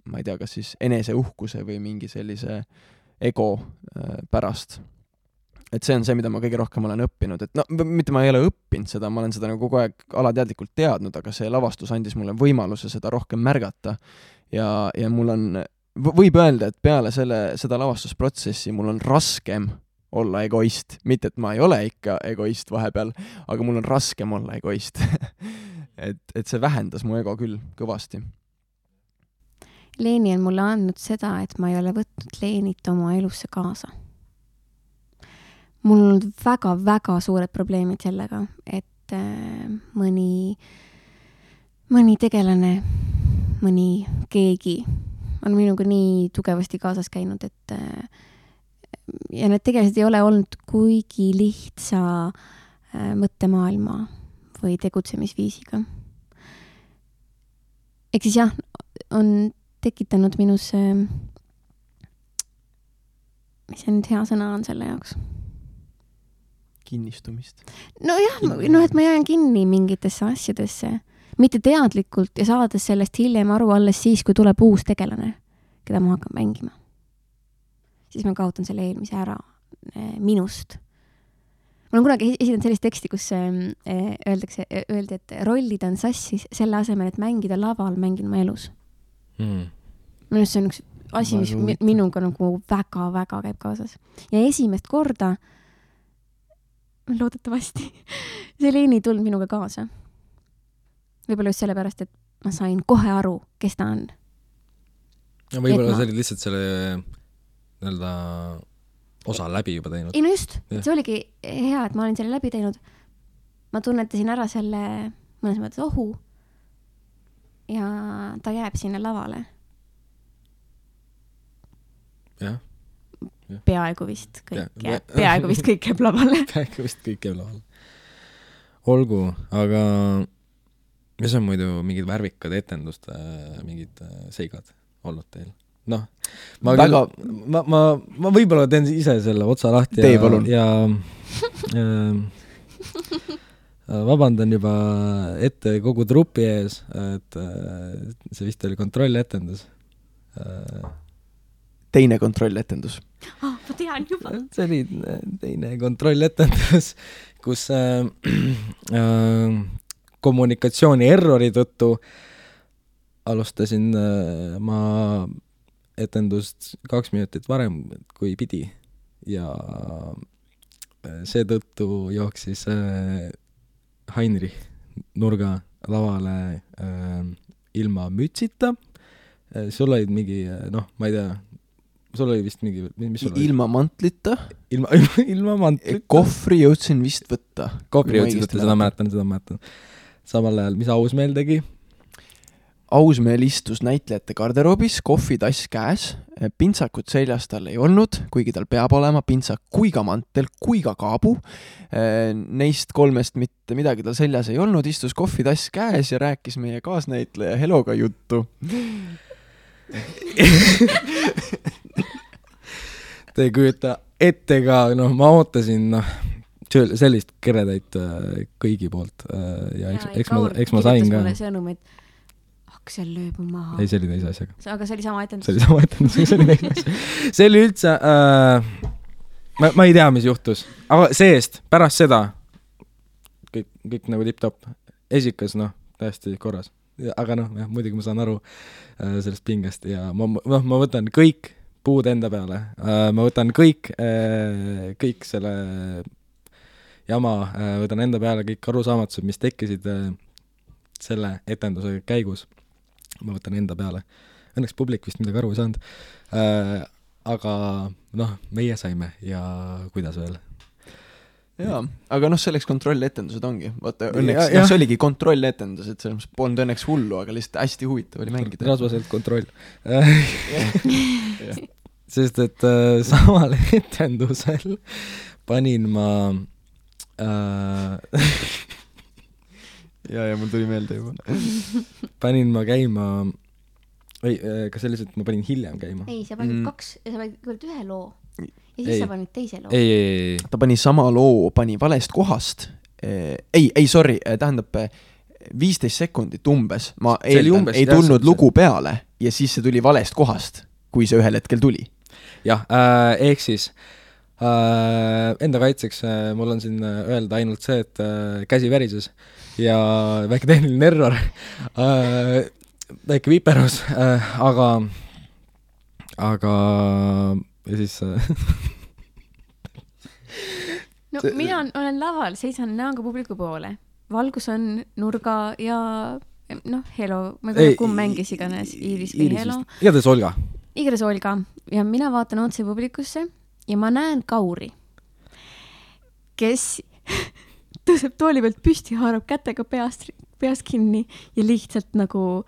ma ei tea, kas siis eneseuhkuse või mingi sellise ego pärast. Et see on see, mida ma kõige rohkem olen õppinud, et mitte ma ei ole õppinud seda, ma olen seda nagu kogu aeg alateadlikult teadnud, aga see lavastus andis mulle võimaluse seda rohkem märgata ja mul on, võib öelda, et peale seda lavastusprotsessi mul on raskem olla egoist, mitte et ma ei ole ikka egoist vahepeal, aga mul on raskem olla egoist. et see vähendas mu ego küll kõvasti. Leeni on mulle andnud seda, et ma ei ole võtnud Leenit oma elusse kaasa. Mul on olnud väga-väga suured probleemid sellega, et mõni tegelane, mõni keegi on minuga nii tugevasti kaasas käinud, et ja need tegelased ei ole olnud kuigi lihtsa mõttemaailma või tegutsemisviisiga. Ehk siis jah, on tekitanud minus mis see nüüd hea sõna on selle jaoks? Kinnistumist. Nojah, et ma jään kinni mingitesse asjadesse, mitte teadlikult ja saades sellest hiljem aru alles siis, kui tuleb uus tegelane, keda ma hakkan mängima. Siis ma kaotan selle eelmise ära minust. Ma olen kunagi esitanud sellist teksti, kus öeldi, et rollid on sassis selle asemel, et mängida laval, mängin ma elus. Minust see on üks asi, mis minuga nagu väga-väga käib kaasas. Ja esimest korda loodetavasti see Leeni tulnud minuga kaasa. Võib-olla just sellepärast, et ma sain kohe aru, kes ta on. Ja võib-olla see oli lihtsalt selle nii-öelda osa läbi juba teinud. Ei no just, see oligi hea, et ma olin selle läbi teinud. Ma tunnetasin ära selle mõnes mõttes ohu ja ta jääb sinna lavale. Jah. Peaaegu vist kõik jääb lavale. Peaaegu vist kõik jääb lavale. Olgu, aga mis on muidu mingid värvikad etenduste mingid seigad olnud teil? Ma võib-olla teen ise selle otsa lahti ja vabandan juba ette kogu trupi ees, et see vist oli kontrolletendus. Teine kontrolletendus. Ma tean juba. See oli teine kontrolletendus, kus kommunikatsiooni errori tõttu alustasin ma etendust 2 minutit varem kui pidi ja seetõttu jooksis Heinrich nurga lavale ilma mütsita. Sul olid mingi, ma ei tea, sul oli vist mingi, mis sul oli? Ilma mantlita. Ilma mantlita. Kohvri jõudsin vist võtta. Kohvri jõudsin võtta, seda mäletan. Samal ajal, mis Ausmeel tegi? Ausmeel istus näitlejate garderoobis, kohvitass käes, pintsakut seljas tal ei olnud, kuigi tal peab olema pintsak kui ka mantel, kui ka kaabu. Neist 3 mitte midagi tal seljas ei olnud, istus kohvitass käes ja rääkis meie kaasnäitleja Heloga juttu. Te ei kujuta ette ka, ma ootasin sellist keredaid kõigi poolt ja eks ma sain ka. Mulle sõnum, et Aksel lööb maha. Ei, see oli teise asjaga. Aga see oli sama etendus. See oli teise asjaga. See oli üldse, ma ei tea, mis juhtus. Aga seest, pärast seda, kõik nagu tipp-top, esikas, täiesti korras. Aga muidugi ma saan aru sellest pingest ja ma võtan kõik puud enda peale. Ma võtan kõik selle jama, võtan enda peale kõik arusaamatused, mis tekkisid selle etenduse käigus. Ma võtan enda peale. Õnneks publik vist midagi aru ei saanud. Aga meie saime ja kuidas veel. Jaa, aga selleks kontrolletendused ongi. Vaata, õnneks, see oligi kontrolletendus, et selles polnud õnneks hullu, aga lihtsalt hästi huvitav oli mängida. Rasvaselt kontroll. Sest, et samal etendusel panin ma ja mul tuli meelde juba. Panin ma käima, kas selliselt ma panin hiljem käima? Ei, sa panid 2, sa panid 1 loo ja siis sa panid teise loo. Ei. Ta pani sama loo, pani valest kohast. Sorry, tähendab 15 sekundit umbes. Ma eeldan, ei tulnud lugu peale ja siis see tuli valest kohast, kui see ühel hetkel tuli. Jah, ehk siis enda kaitseks mul on siin öelda ainult see, et käsi värises ja väike tehniline error, väike viperus, aga ja siis mina olen laval, seisan näoga publiku poole. Valgus on nurga ja Helo, ma ei tea, kumb mängis iganes, Iiris või Helo. Igatahes Olga. Ja mina vaatan otse publikusse ja ma näen Kauri, kes tõuseb tooli pealt püsti, haarab kätega peast kinni ja lihtsalt nagu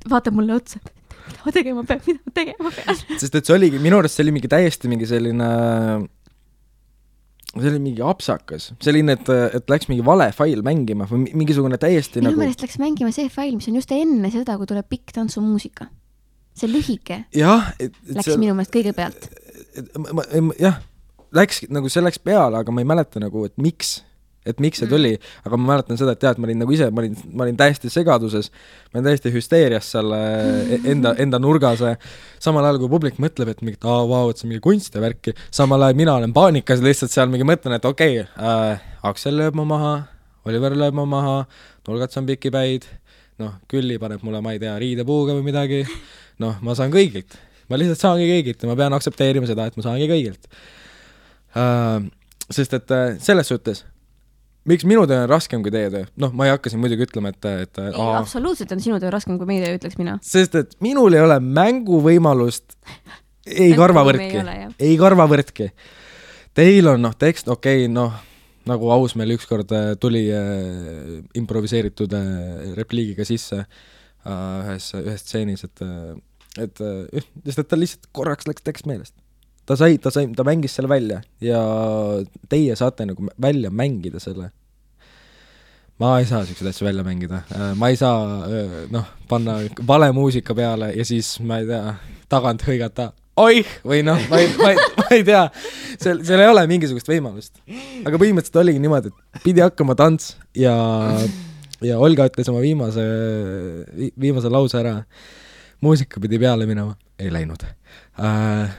vaatab mulle otsa, mida ma tegema pean. Sest et see oligi, minu arust see oli mingi täiesti mingi selline, see oli mingi apsakas. Selline, et läks mingi vale fail mängima või mingisugune täiesti minu meelest läks mängima see fail, mis on just enne seda, kui tuleb pikk tantsumuusika. See lühike läks minu meelest kõigepealt. Jah, läks, nagu see läks peale, aga ma ei mäleta nagu, et miks see tuli, aga ma mäletan seda, et ma olin nagu ise, ma olin täiesti segaduses, ma olin täiesti hüsteerias seal enda nurgas, samal ajal kui publik mõtleb, et mingit, et see mingi kunst ja värki, samal ajal mina olen paanikas, lihtsalt seal mingi mõtlen, et okei, Aksel lööb ma maha, Oliver lööb ma maha, nurgats on pikipäid, Külli paneb mulle, ma ei tea, riidepuuga või midagi, ma saan kõigilt. Ma lihtsalt saangi kõigilt ja ma pean aktsepteerima seda, et ma saangi kõigilt. Sest et selles suhtes, miks minu töö on raskem kui teie töö? Ma ei hakka siin muidugi ütlema, et absoluutselt on sinu töö raskem kui meie töö, ütleks mina. Sest et minul ei ole mänguvõimalust ei karvavõrdki. Teil on tekst, nagu Ausmeel ükskord tuli improviseeritud repliigiga sisse ühes stseenis, et ta lihtsalt korraks läks tekst meelest. Ta mängis selle välja ja teie saate nagu välja mängida selle. Ma ei saa sellised asju välja mängida. Ma ei saa panna vale muusika peale ja siis, ma ei tea, tagant hõigata oih, või ma ei tea. Seal ei ole mingisugust võimalust. Aga põhimõtteliselt oligi niimoodi, et pidi hakkama tants ja Olga ütles oma viimase lause ära. Muusika pidi peale minema. Ei läinud.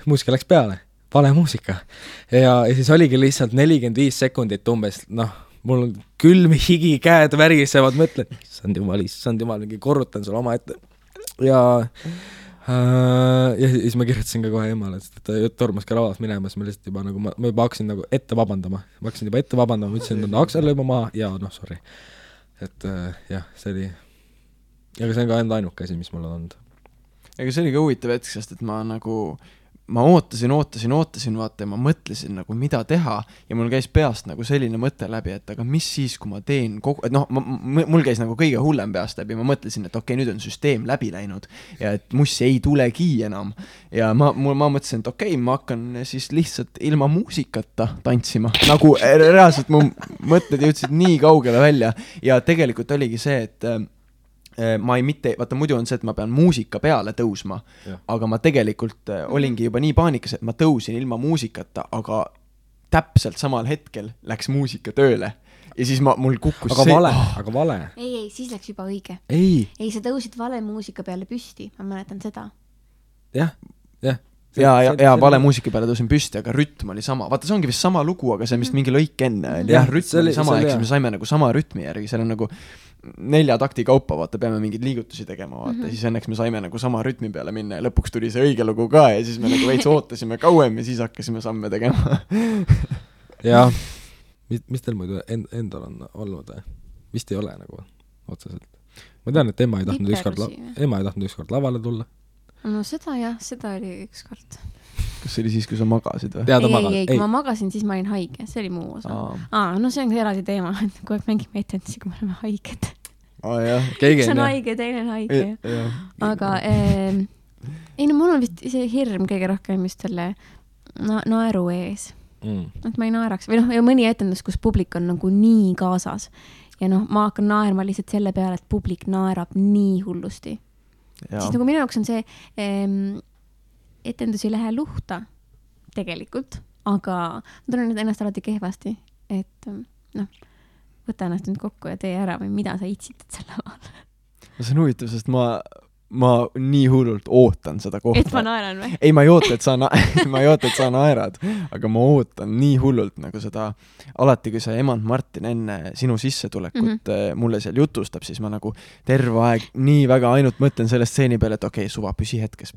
Muusika läks peale. Vale muusika. Ja siis oligi lihtsalt 45 sekundit umbes. Mul on külm higi, käed värisevad, mõtlen, issand jumal, mingi korrutan sul oma ette. Ja Ja siis ma kirjutasin ka kohe emale, sest ta tormas ka lavas minema, siis ma lihtsalt juba nagu, ma juba hakkasin nagu ette vabandama, ma ütlesin, et Aksel lõi ma maha ja noh, sorry. Et jah, see oli, aga see on ka enda ainuke asi, mis mul on olnud. Ega see oli ka huvitav hetk, sest et ma ootasin, vaata, ja ma mõtlesin nagu, mida teha ja mul käis peast nagu selline mõte läbi, et aga mis siis, kui ma teen et noh, mul käis nagu kõige hullem peast läbi, ma mõtlesin, et okei, nüüd on süsteem läbi läinud ja et mussi ei tulegi enam ja ma mõtlesin, et okei, ma hakkan siis lihtsalt ilma muusikata tantsima, nagu reaalselt mu mõtted jõudsid nii kaugele välja ja tegelikult oligi see, et ma ei mitte, vaata muidu on see, et ma pean muusika peale tõusma, aga ma tegelikult olingi juba nii paanikas, et ma tõusin ilma muusikata, aga täpselt samal hetkel läks muusika tööle ja siis mul kukkus aga vale. Ei, siis läks juba õige. Ei, sa tõusid vale muusika peale püsti, ma mäletan seda. Jah. Ja vale muusika peale tõusin püsti, aga rütm oli sama. Vaata, see ongi vist sama lugu, aga see on vist mingi lõik enne. Jah, rütm oli sama, eks me saime nagu sama rütmi järgi, seal on nagu 4 takti kaupa, vaata, peame mingeid liigutusi tegema, vaata, siis õnneks me saime nagu sama rütmi peale minna ja lõpuks tuli see õige lugu ka ja siis me nagu veits ootasime kauem ja siis hakkasime samme tegema. Jah, mis teil muidu endal on olnud? Vist ei ole nagu otseselt. Ma tean, et ema ei tahtnud ükskord lavale tulla. No seda oli ükskord. Kas see oli siis, kui sa magasid või? Ei, kui ma magasin, siis ma olin haige, see oli muu osa. No see on eraldi teema, et kui mängime etendusi, kui me oleme haiged. Üks on haige, teine on haige. Aga mul on vist see hirm kõige rohkem just selle naeru ees. Et ma ei naeraks. Või ja mõni etendus, kus publik on nagu nii kaasas. Ja ma hakkan naerma lihtsalt selle peale, et publik naerab nii hullusti. Siis nagu minu jaoks on see etendus ei lähe luhta tegelikult, aga ma tunnen ennast alati kehvasti, et võta ennast nüüd kokku ja tee ära või mida sa itsitad selle laval. See on huvitav, sest ma nii hullult ootan seda kohta. Et ma naeran või? Ei, ma ei oota, et sa naerad, aga ma ootan nii hullult nagu seda, alati kui see emand Martin enne sinu sissetulekut mulle seal jutustab, siis ma nagu terve aeg nii väga ainult mõtlen selle stseeni peale, et okei, suva, püsi hetkes,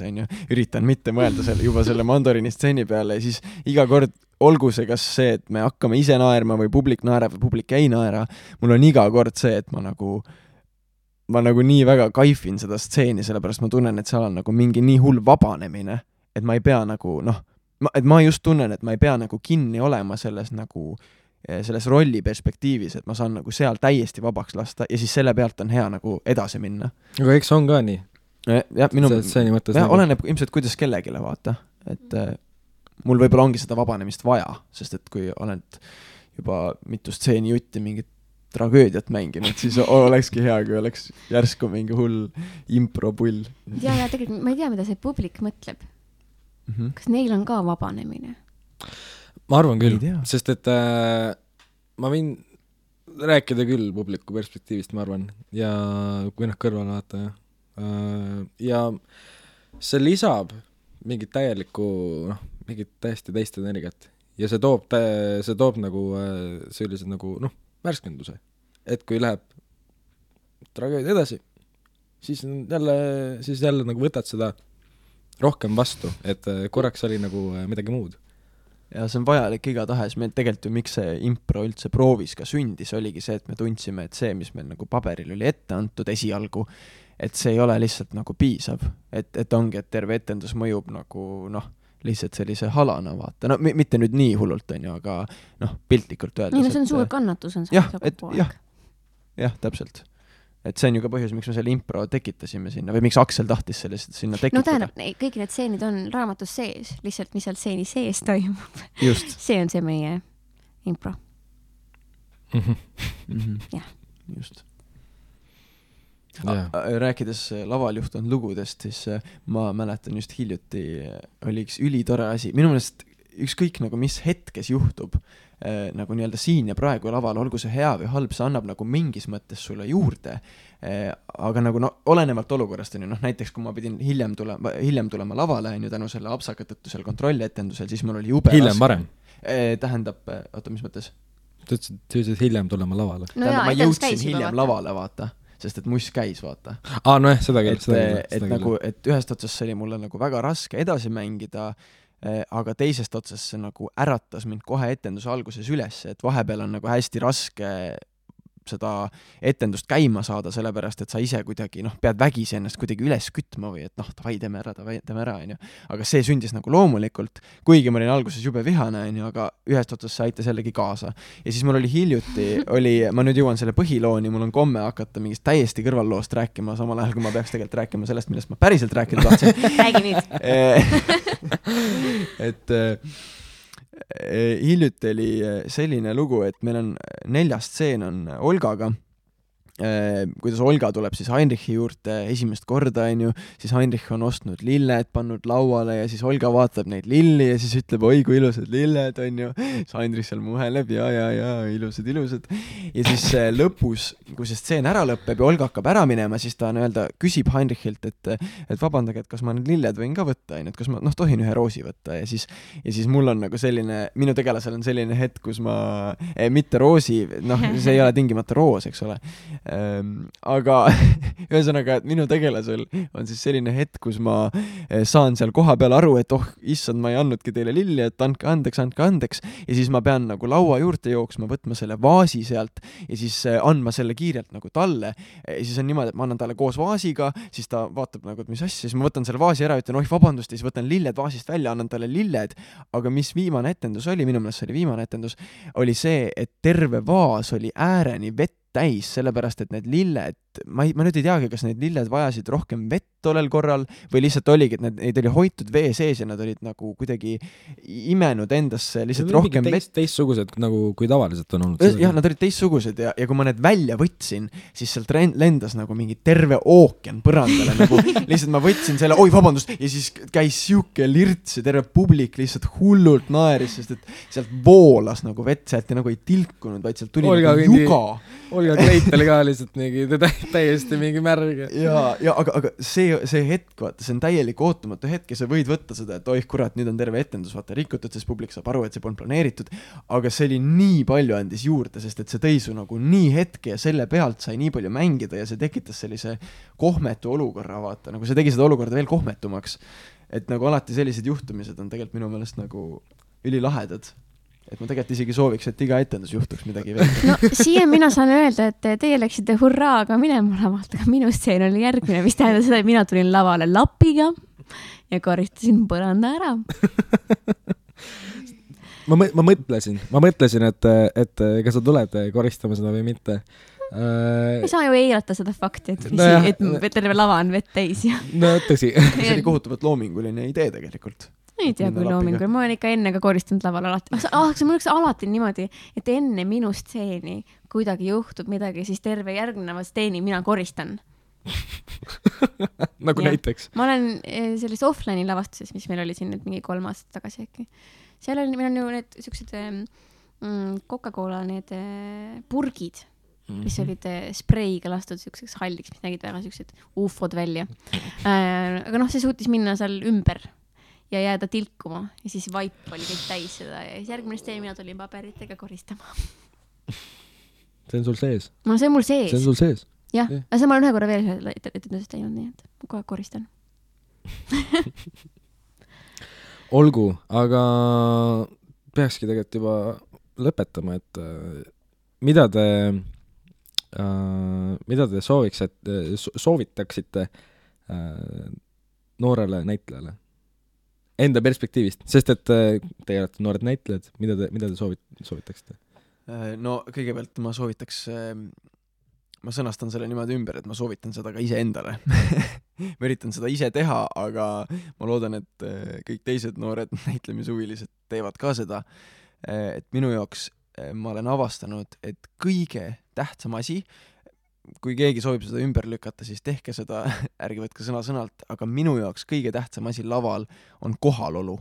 on ju, üritan mitte mõelda juba selle Mandorini stseeni peale ja siis iga kord olgu see kas see, et me hakkame ise naerma või publik naerab või publik ei naera, mul on iga kord see, et ma nagu nii väga kaifin seda stseeni, sellepärast ma tunnen, et seal on nagu mingi nii hull vabanemine, et ma ei pea nagu, et ma just tunnen, et ma ei pea nagu kinni olema selles rolli perspektiivis, et ma saan nagu seal täiesti vabaks lasta ja siis selle pealt on hea nagu edasi minna. Aga eks on ka nii. Oleneb ilmselt kuidas kellegile vaata, et mul võib-olla ongi seda vabanemist vaja, sest et kui oled juba mitu stseeni jutti mingit tragöödiat mänginud, siis olekski hea, kui oleks järsku mingi hull impropull. Ja tegelikult ma ei tea, mida see publik mõtleb. Kas neil on ka vabanemine? Ma arvan küll, sest et ma võin rääkida küll publiku perspektiivist, ma arvan, ja kui kõrval vaata. Ja see lisab mingit täielikku, mingit täiesti teist energiat ja see toob nagu sellised nagu, värskenduse, et kui läheb tragöödia edasi, siis jälle nagu võtad seda rohkem vastu, et korraks oli nagu midagi muud. Ja see on vajalik igatahes, meil tegelikult ju miks see impro üldse proovis ka sündis, oligi see, et me tundsime, et see, mis meil nagu paberil oli ette antud esialgu, et see ei ole lihtsalt nagu piisav, et ongi, et terve etendus mõjub nagu lihtsalt sellise halana vaata, mitte nüüd nii hullult on ju, aga piltlikult öeldes. Nii, see on suur kannatus on jah, täpselt. Et see on ju ka põhjus, miks me selle impro tekitasime sinna, või miks Aksel tahtis sinna tekitada. Tähendab, kõik need stseenid on raamatus sees, lihtsalt mis seal stseeni sees toimub. Just. See on see meie impro. Jah. Just. Rääkides laval juhtunud lugudest, siis ma mäletan just hiljuti oli üks ülitore asi, minu meelest ükskõik nagu mis hetkes juhtub nagu nii-öelda siin ja praegu laval, olgu see hea või halb, see annab nagu mingis mõttes sulle juurde, aga nagu olenevalt olukorrast on ju, näiteks kui ma pidin hiljem tulema lavale on ju tänu selle apsaka tõttu seal kontrollietendusel, siis mul oli jube hiljem varem? Tähendab, oota, mis mõttes? Sa ütlesid hiljem tulema lavale? Ma jõudsin hiljem lavale, vaata. sest et muss käis, vaata. Nojah, seda küll. Et nagu, et ühest otsast see oli mulle nagu väga raske edasi mängida, aga teisest otsast see nagu äratas mind kohe etenduse alguses üles, et vahepeal on nagu hästi raske seda etendust käima saada, sellepärast, et sa ise kuidagi, pead vägisi ennast kuidagi üles kütma või et davai, teeme ära, onju. Aga see sündis nagu loomulikult, kuigi ma olin alguses jube vihane, onju, aga ühest otsast see aitas jällegi kaasa. Ja siis mul oli hiljuti, ma nüüd jõuan selle põhilooni, mul on komme hakata mingist täiesti kõrvalloost rääkima, samal ajal, kui ma peaks tegelikult rääkima sellest, millest ma päriselt rääkida tahtsin. Räägi nüüd. Et hiljuti oli selline lugu, et meil on 4. stseen on Olgaga, kuidas Olga tuleb siis Heinrichi juurde esimest korda, onju, siis Heinrich on ostnud lilled, pannud lauale ja siis Olga vaatab neid lilli ja siis ütleb, oi kui ilusad lilled, onju. Siis Heinrich seal muheleb ja, ilusad. Ja siis lõpus, kui see stseen ära lõpeb ja Olga hakkab ära minema, siis ta küsib Heinrichilt, et vabandage, et kas ma need lilled võin ka võtta, onju, et kas ma tohin ühe roosi võtta ja siis mul on nagu selline, minu tegelasel on selline hetk, kus ma, mitte roosi, see ei ole tingimata roos, eks ole. Aga ühesõnaga, et minu tegelasel on siis selline hetk, kus ma saan seal koha peal aru, et issand, ma ei andnudki teile lilli, et andke andeks ja siis ma pean nagu laua juurde jooksma, võtma selle vaasi sealt ja siis andma selle kiirelt nagu talle ja siis on niimoodi, et ma annan talle koos vaasiga, siis ta vaatab nagu, et mis asja, siis ma võtan selle vaasi ära, ütlen vabandust ja siis võtan lilled vaasist välja, annan talle lilled, aga mis viimane etendus oli, minu meelest see oli viimane etendus, oli see, et terve vaas oli ääreni vett täis, sellepärast, et need lilled, ma nüüd ei teagi, kas need lilled vajasid rohkem vett tollel korral või lihtsalt oligi, et neid oli hoitud vee sees ja nad olid nagu kuidagi imenud endasse lihtsalt rohkem vett. Teistsugused nagu kui tavaliselt on olnud. Jah, nad olid teistsugused ja kui ma need välja võtsin, siis sealt lendas nagu mingi terve ookean põrandale, nagu lihtsalt ma võtsin selle, oi vabandust, ja siis käis siuke lirts ja terve publik lihtsalt hullult naeris, sest et sealt voolas nagu vett, sealt ja nagu ei tilkunud, vaid sealt tuli nagu juga. Olga Kleipel ka lihtsalt mingi täiesti mingi märg. Aga see hetk, vaata, see on täielik ootamatu hetk ja sa võid võtta seda, et oih kurat, nüüd on terve etendus, vaata, rikutud, sest publik saab aru, et see polnud planeeritud, aga see oli nii palju andis juurde, sest et see tõi su nagu nii hetke ja selle pealt sai nii palju mängida ja see tekitas sellise kohmetu olukorra, vaata, nagu see tegi seda olukorda veel kohmetumaks, et nagu alati sellised juhtumised on tegelikult minu meelest nagu ülilahedad. Et ma tegelikult isegi sooviks, et iga etendus juhtuks midagi veel. No siia mina saan öelda, et teie läksite hurraaga minema lavalt, aga minu stseen oli järgmine, mis tähendab seda, et mina tulin lavale lapiga ja koristasin põranda ära. ma mõtlesin, et kas sa tuled koristama seda või mitte. Ei saa ju eirata seda fakti, et terve lava on vett täis. No tõsi. See oli kohutavalt loominguline idee tegelikult. Ei tea, kui loomingul. Ma olen ikka enne ka koristanud laval alati. See mul alati niimoodi, et enne minu stseeni kuidagi juhtub midagi, siis terve järgneva stseeni mina koristan. Nagu ja. Näiteks? Ma olen selles offline'i lavastuses, mis meil oli siin nüüd mingi 3 aastat tagasi äkki. Seal oli, meil on ju need sellised Coca-Cola need purgid, mis olid spreiga lastud selliseks halliks, mis nägid väga sellised ufod välja. Aga see suutis minna seal ümber ja jääda tilkuma ja siis vaip oli kõik täis seda ja siis järgmine steen mina tulin paberitega koristama. See on sul sees? No see on mul sees. See on sul sees? Jah, aga see ma olen ühe korra veel etendusest teinud, nii et ma kohe koristan. Olgu, aga peakski tegelikult juba lõpetama, et mida te soovitaksite noorele näitlejale? Enda perspektiivist, sest et teie olete noored näitlejad, mida te soovitaksite? No kõigepealt ma soovitaks, ma sõnastan selle niimoodi ümber, et ma soovitan seda ka ise endale. Ma üritan seda ise teha, aga ma loodan, et kõik teised noored näitlemishuvilised teevad ka seda. Et minu jaoks ma olen avastanud, et kõige tähtsam asi, kui keegi soovib seda ümber lükata, siis tehke seda, ärge võtke sõna-sõnalt, aga minu jaoks kõige tähtsam asi laval on kohalolu.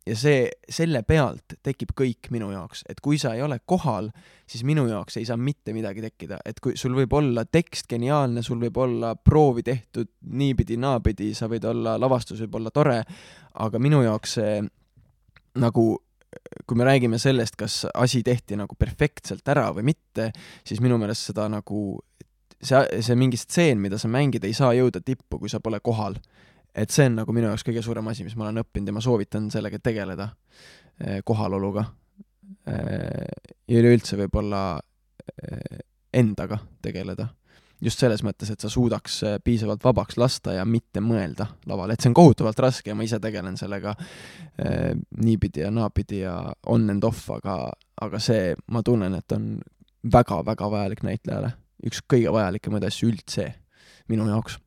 Ja selle pealt tekib kõik minu jaoks, et kui sa ei ole kohal, siis minu jaoks ei saa mitte midagi tekkida, et kui sul võib olla tekst geniaalne, sul võib olla proovi tehtud niipidi, naapidi, sa võid olla, lavastus võib olla tore, aga minu jaoks see nagu kui me räägime sellest, kas asi tehti nagu perfektselt ära või mitte, siis minu meelest seda nagu see mingi stseen, mida sa mängid, ei saa jõuda tippu, kui sa pole kohal. Et see on nagu minu jaoks kõige suurem asi, mis ma olen õppinud ja ma soovitan sellega tegeleda kohaloluga. Ja üleüldse võib-olla endaga tegeleda. Just selles mõttes, et sa suudaks piisavalt vabaks lasta ja mitte mõelda laval. Et see on kohutavalt raske ja ma ise tegelen sellega niipidi ja naapidi ja on and off, aga see, ma tunnen, et on väga-väga vajalik näitlejale. Üks kõige vajalikemaid asju üldse minu jaoks.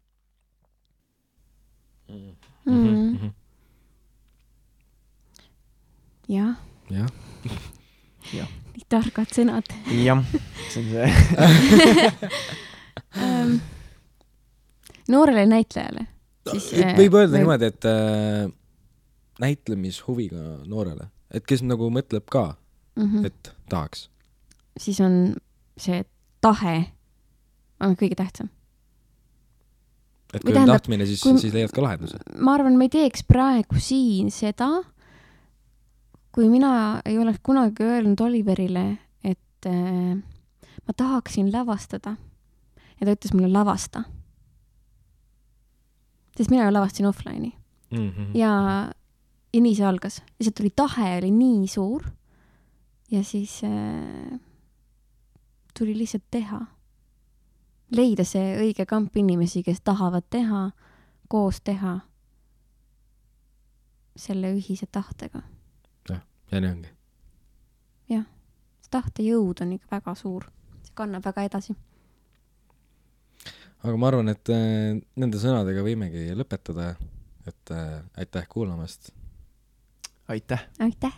Jah. Jah. Nii targad sõnad. Jah, see on see. Noorele näitlejale. Võib öelda niimoodi, et näitlemishuviga noorele. Et kes nagu mõtleb ka, et tahaks. Siis on see tahe on kõige tähtsam. Et kui on tahtmine, siis leiad ka lahenduse. Ma arvan, ma ei teeks praegu siin seda, kui mina ei oleks kunagi öelnud Oliverile, et ma tahaksin lavastada. Ja ta ütles mulle lavasta. Sest mina lavastasin offline'i. Ja nii see algas. Lihtsalt tuli tahe, oli nii suur. Ja siis tuli lihtsalt teha. Leida see õige kamp inimesi, kes tahavad teha, koos teha selle ühise tahtega. Ja nii ongi. Jah, see tahte jõud on ikka väga suur. See kannab väga edasi. Aga ma arvan, et nende sõnadega võimegi lõpetada, et aitäh kuulamast. Aitäh. Aitäh.